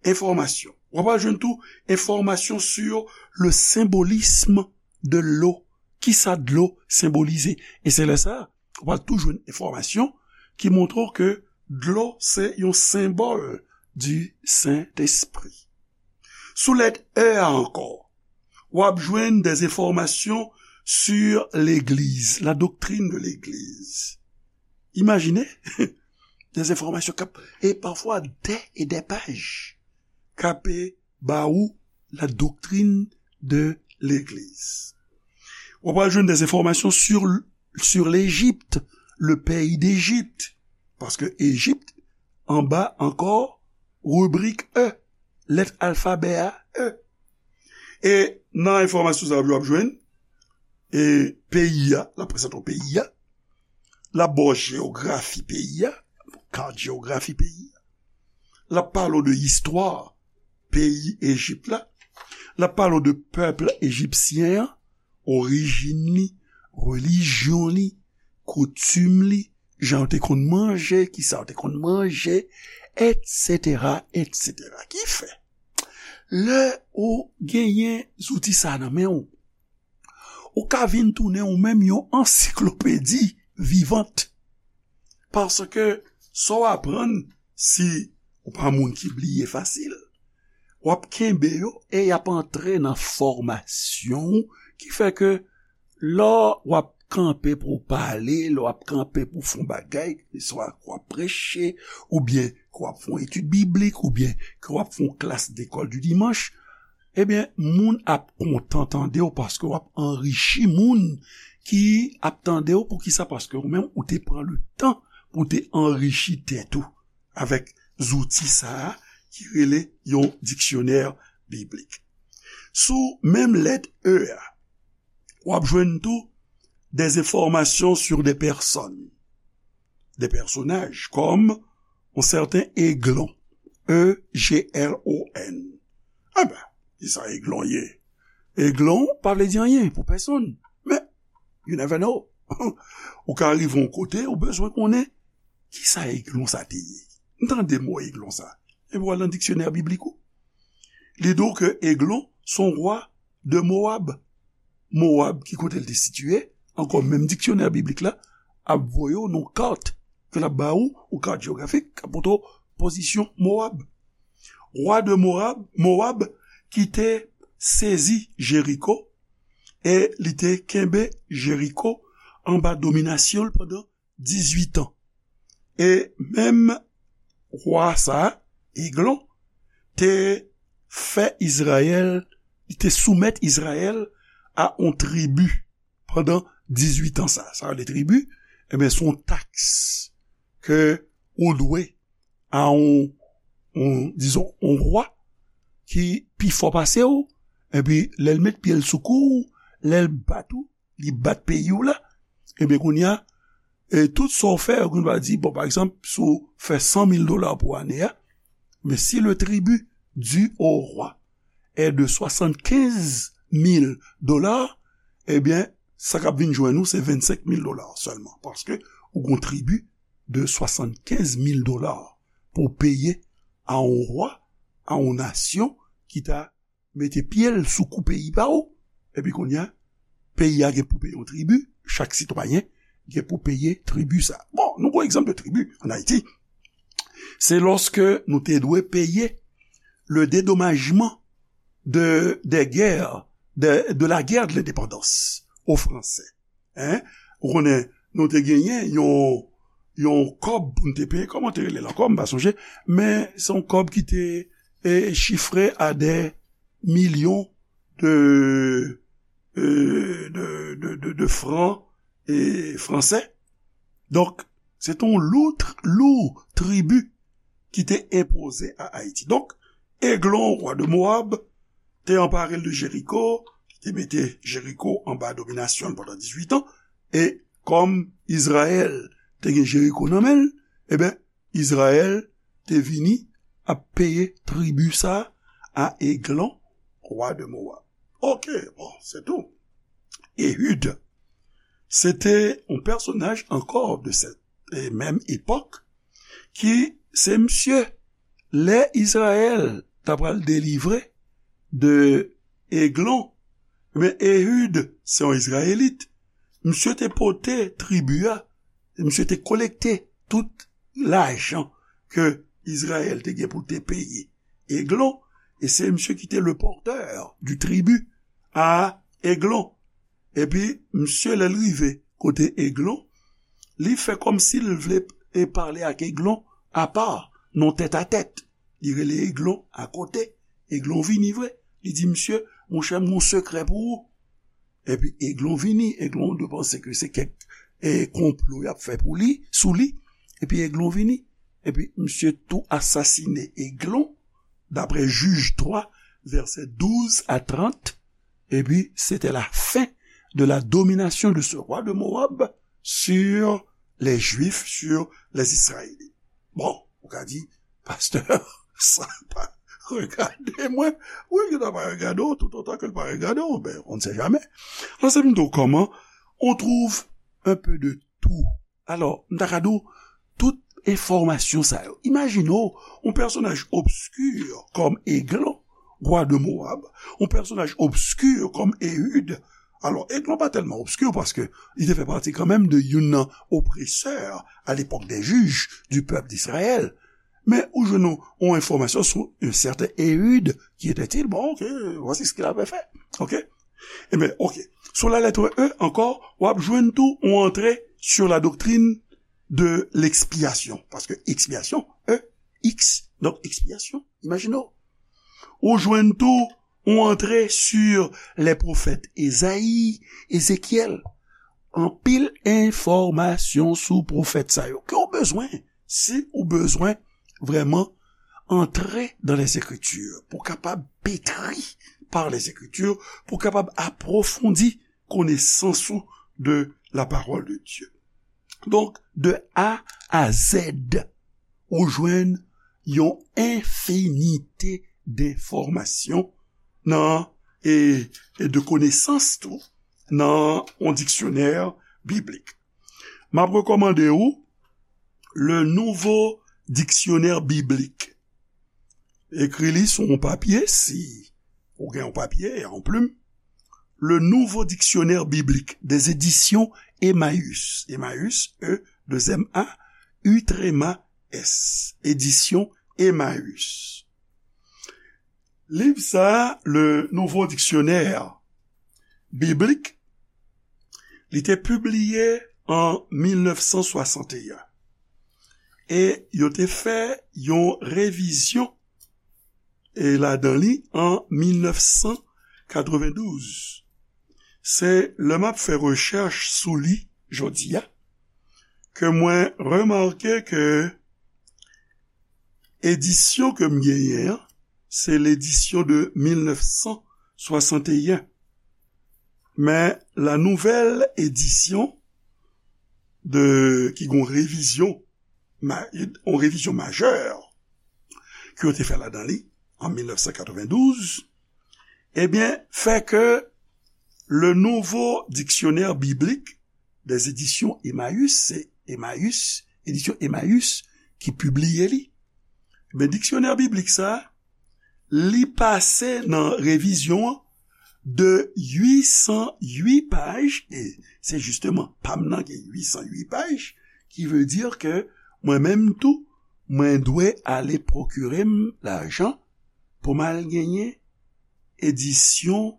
Enfòmasyon. W ap jwenn tou enfòmasyon sur le symbolisme de l'eau. Kisa dlo senbolize? E se lè sa, w ap tou jwenn enfòmasyon ki montre w ke dlo se yon senbòl du Saint-Esprit. Sou lèt E a ankò, w ap jwenn des informations sur l'Église, la doctrine de l'Église. Imajine, des informations k ap, e pafwa dè e dè paj, k ap ba ou la doctrine de l'Église. W ap jwenn des informations sur, sur l'Égypte, le pays d'Égypte. Paske Ejip anba ankò ribrik E, lèt alfabè a, E. E nan enfòmasyon sa yo w ap jwenn, e peyi a, l ap prezante w peyi a, l ap ba w jeyografi peyi a, kat jeyografi peyi a, l ap pale w de istwa peyi Ejip la, l ap pale w de pèp ejipsyen an, orijin li, relijyon li, koutim li, jan yo te konn manje, kisa yo te konn manje, etsetera, etsetera. Ki fè, lè ou genyen zouti sa nan men w, ou ka vin tounen ou menm yon ansiklopedi vivant. Paske sa w aprann, si ou pa moun ki bliye fasil, w ap kenbe yo e y ap antre nan fòmasyon w, ki fè ke lè w ap kanpe pou w pale, lè w ap kanpe pou w fè yon bagay, keseswa ke w ap preche, oubyen ke w ap fè yon etid biblik, oubyen ke w ap fè yon klas lekòl di dimanch, ebyen, moun ap kontan tande w paske w ap anrichi moun ki ap tande w. Poukisa? Paske ou menm, ou te pran le tan pou w te anrichi tèt ou avèk zouti sa a ki rele yon diksyonè biblik. Sou menm lèt E a, w ap jwenn tou des informations sur des personnes, des personnages, comme un certain Eglon, E G L O N. Enben, kisa Eglon ye? Eglon pa vle di anyen pou pèsonn, men you never know. Ou ka rive yon kote, ou bezwen konnen kisa Eglon sa te ye. M tande mo Eglon sa. Epi w al nan diksyonè biblik ou, li di w ke Eglon se yon wa de Mowab. Mowab, ki kote l te sitiye, ankò menm diksyonè biblik la ap voye w nan kat ke l ap ba ou, yon kat jewografik, k ap montre w pozisyon Mowab. Wa de Mowab, Mowab ki te sezi Jeriko, e li te kenbe Jeriko anba dominasyon l pandan dizuit an. E menm wa sa a, Eglon, te fè Izrayèl, li te soumèt Izrayèl a yon tribi pandan dizuit an sa. Sa yo rele tribi, ebyen, se yon taks ke ou dwe a yon, yon, dizon, yon wa ki pi fò pase w, epi lè l met pye l sou kou w, lè l bat ou, li bat peyi w la, ebyen, kounye a, e tout sa w fè, yo konn va di, bon, pa egzanp, si w fè san mil dola pou ane a, men si le tribut dû au roi est de soixante-quinze mille dollars, ebyen, sa k ap vin jwenn ou, se vennsenk mil dola sèlman, paske ou gon tribi de soixante-quinze mille dola pou w peye a yon wa, a yon nasyon ki ta mete pye l sou kou peyi pa w, epi kounye a, peyi a gen pou peye yon tribi, chak sitwayen gen pou peye tribi sa. Bon, nou pran egzanp de tribi ann Ayiti. Se lòske nou te dwe peye le dédommagement de, des guerres, de, de la guerre de l'indépendance aux Français. Hein? Ou konnen, nou te genyen yon, yon kòb pou n te peye, kòman te rele l ankò, m pa sonje, men se yon kòb ki te, e, chifre a des millions de, e, de, de, de, de francs, e, français. Donk, se te yon lou, tr-, lou tribi ki te enpoze a Ayiti. Donk, Eglon, wa de Mowab, te anpare l de Jeriko, ki te mete Jeriko anba dominasyon l pandan dizuit an, e kòm Izrayèl te gen Jeriko nan men l, e ben, Izrayèl te vini ap peye tribi sa a Eglon, wa de Mowab. Oke, bon, se tou. Ehud, se te yon pèsonaj ankò de sèt, e menm epòk, ki se misye, lè Izrayèl ta pral delivre de Eglon, men Ehud, se yon Izrayelit, misye te pote tribi a, misye te kolekte tout lajan ke Izrayèl te gen pou te peye Eglon, e se misye ki te le porteur du tribut a Eglon. Epi, misye, lè l rive kote Eglon, li fè kòmsi l vle e pale ak Eglon apa, nan tèt a tèt. Li rele Eglon akote. Eglon vini vre. Li di, "Misye, monchè, m gon sekrè pou ou." Epi Eglon vini. Eglon dwe panse ke se kèk, e, konplo y ap fè pou li, sou li. Epi Eglon vini. Epi misye tou asasine Eglon, daprè Jij twa, vèsè douz a trant. Epi, c'était la fin de la domination de ce roi de Moab sur les Juifs, sur les Israélites. Bon, ou ka di, "Pastè, sa pa regade mwen." Wi, li ta pa regade w, tout otan ke l pa regade w, ben, on ne sait jamais. Alò, se m di w kòman, on trouve un peu de tout. Alò, m ta ka di w, tout enfòmasyon sa yo. Imajine w, yon pèsonaj obski kòm Eglon, wa de Moab, yon pèsonaj obski kòm Ehud. Alò, Eglon pa tèlman obski paske li te fè pati kanmenm de youn nan opresè a lepòk dè jij du pèp d'Israël. Men ou jwenn yon, yon enfòmasyon sou yon sèten Ehud, qui était-il? Bon, ok, voici ce qu'il avait fait. Ok? Ebyen, ok. Sou la lettre E ankò, w ap jwenn tou yon antre sur la doctrine de l'expiation. Paske expiation, E, X, donk expiation, imajine w. Ou jwenn tou yon antre sur les prophètes Ezayi, Ezekyèl. Anpil enfòmasyon sou pwofèt sa yo. Ke w bezwen, si ou bezwen vrèman antre dans les Écritures, pou kapab pétri par les Écritures, pou kapab apwofondi konesans ou de la parole de Dieu. Donk, de A a Z, ou jwenn yon enfinite denfòmasyon nan, e, e de konesans tou, nan yon diksyonè biblik. M ap rekòmande ou Le Nouveau Dictionnaire Biblique. Ekri li sou yon papye, si ou gen yon papye, yon plim. Le Nouveau Dictionnaire Biblique des Éditions Emmaüs. Emmaüs, E, deux M A, U tréma S. Éditions Emmaüs. Liv sa, Le Nouveau Dictionnaire Biblique, li te pibliye an mil nèf san swasanteyen. E yo te fè yon revizyon, e ladan li, an mil nèf san katrevendouz. Se lè m ap fè rechèch sou li jodi a, ke mwen remake ke edisyon ke m genyen an, se ledisyon de mil nèf san swasanteyen. Men la nouvelle édition de, ki gon revizyon, ma-, yon revizyon majè ke yo te fè ladan li an mil nèf san katrevendouz, ebyen, fè ke Le Nouveau Dictionnaire Biblique des Éditions Emmaüs, se Emmaüs, edisyon Emmaüs ki pibliye li. Men diksyonè biblik sa, li pase nan revizyon an de uit san uit paj, e se jisteman pa m nan gen uit san uit paj, ki vle di ke mwen menm tou, mwen dwe ale pwokire m lajan pou m al genyen edisyon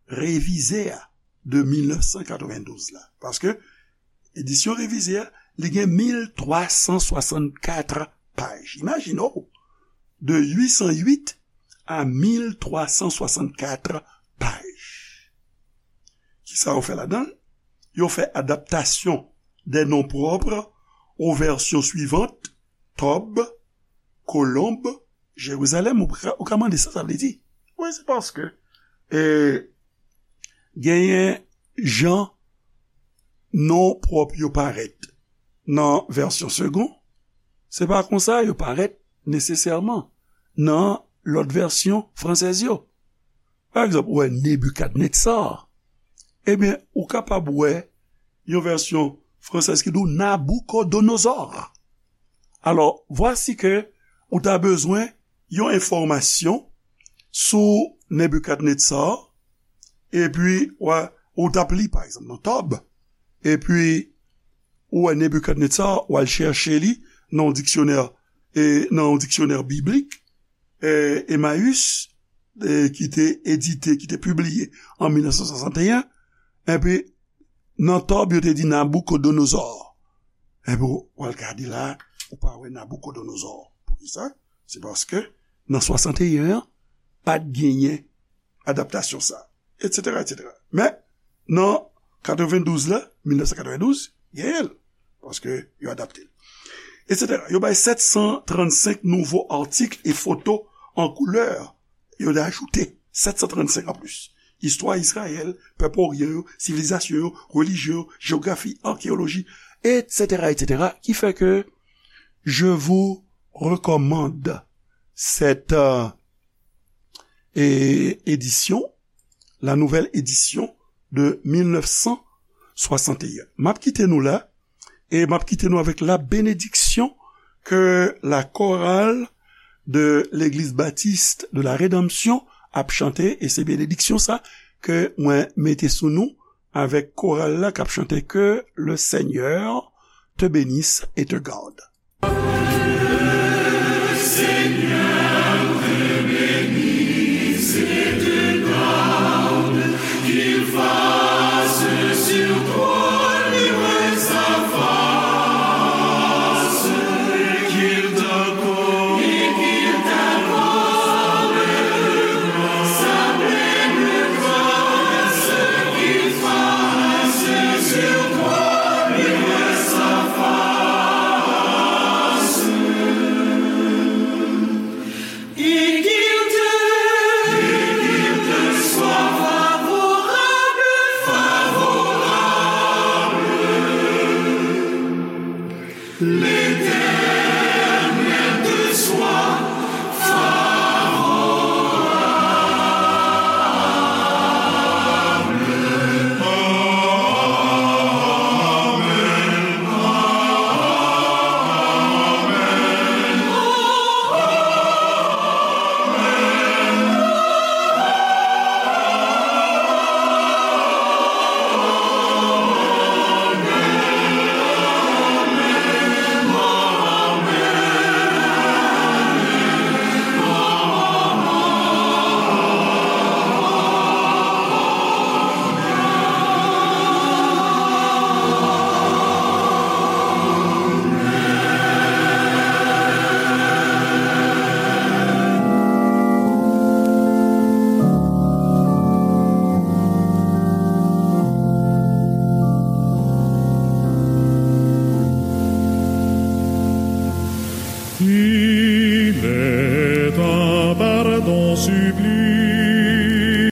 revize a de mil nèf san katrevendouz la. Paske edisyon revize a, li gen mil twa san swasannkat paj. Imajine w, de uit san uit a mil twa san swasannkat paj. Kisa yo fè ladan l? Yo fè adaptasyon des noms propres aux versions suivantes, Tòb, Kolonb, Jerizalèm. Ou ka, ou ka mande sa sa vle di. Wi, se paske, e, genyen jan non pwòp yo parèt nan vèsyon Segond, se pa konsa yo parèt nesesèman nan lòt vèsyon fransèz yo. Pa egzanp, ou wè Nebikadnetsar. Ebyen, ou kapab wè yon vèsyon fransèz ki di w Naboukodonozò. Alò, vwasi ke ou ta bezwen yon enfòmasyon sou Nebikadnetsar, epi w a, ou t ap li, pa egzanp, nan Tòb, epi ou wè Nebikadnetsar, w al chèche li nan yon diksyonè, e, nan yon diksyonè biblik, e, Emmaüs, e, ki te edite, ki te pibliye an mil nèf san swasanteyen, epi nan Tòb, yo te di Naboukodonozò. Epi w al gade la, ou pa wè Naboukodonozò. Poukisa? Se paske nan swasanteyen an, pa t genyen adaptasyon sa, etsetera, etsetera. Men, nan katrevendouz la, mil nèf san katrevendouz, genyen l, paske yo adapte l, etsetera. Yo bay sèt san trannsenk nouvo atik e foto an koulè. Yo te ajoute sèt san trannsenk anplis. Istwa Izrayèl, pèp oryan yo, sivilizasyon yo, relijyon yo, jewografi, akeyoloji, etsetera, etsetera, ki fè ke je vous recommande cette, euh, é-, édition, la nouvelle édition de mil nèf san swasanteyen. M ap kite nou la, e m ap kite nou avèk la bénédiction que la chorale de l'Église Baptiste de la Rédemption ap chante, e se benediksyon sa ke mwen mete sou nou avèk koral la k ap chante Que le Seigneur te bénisse et te garde.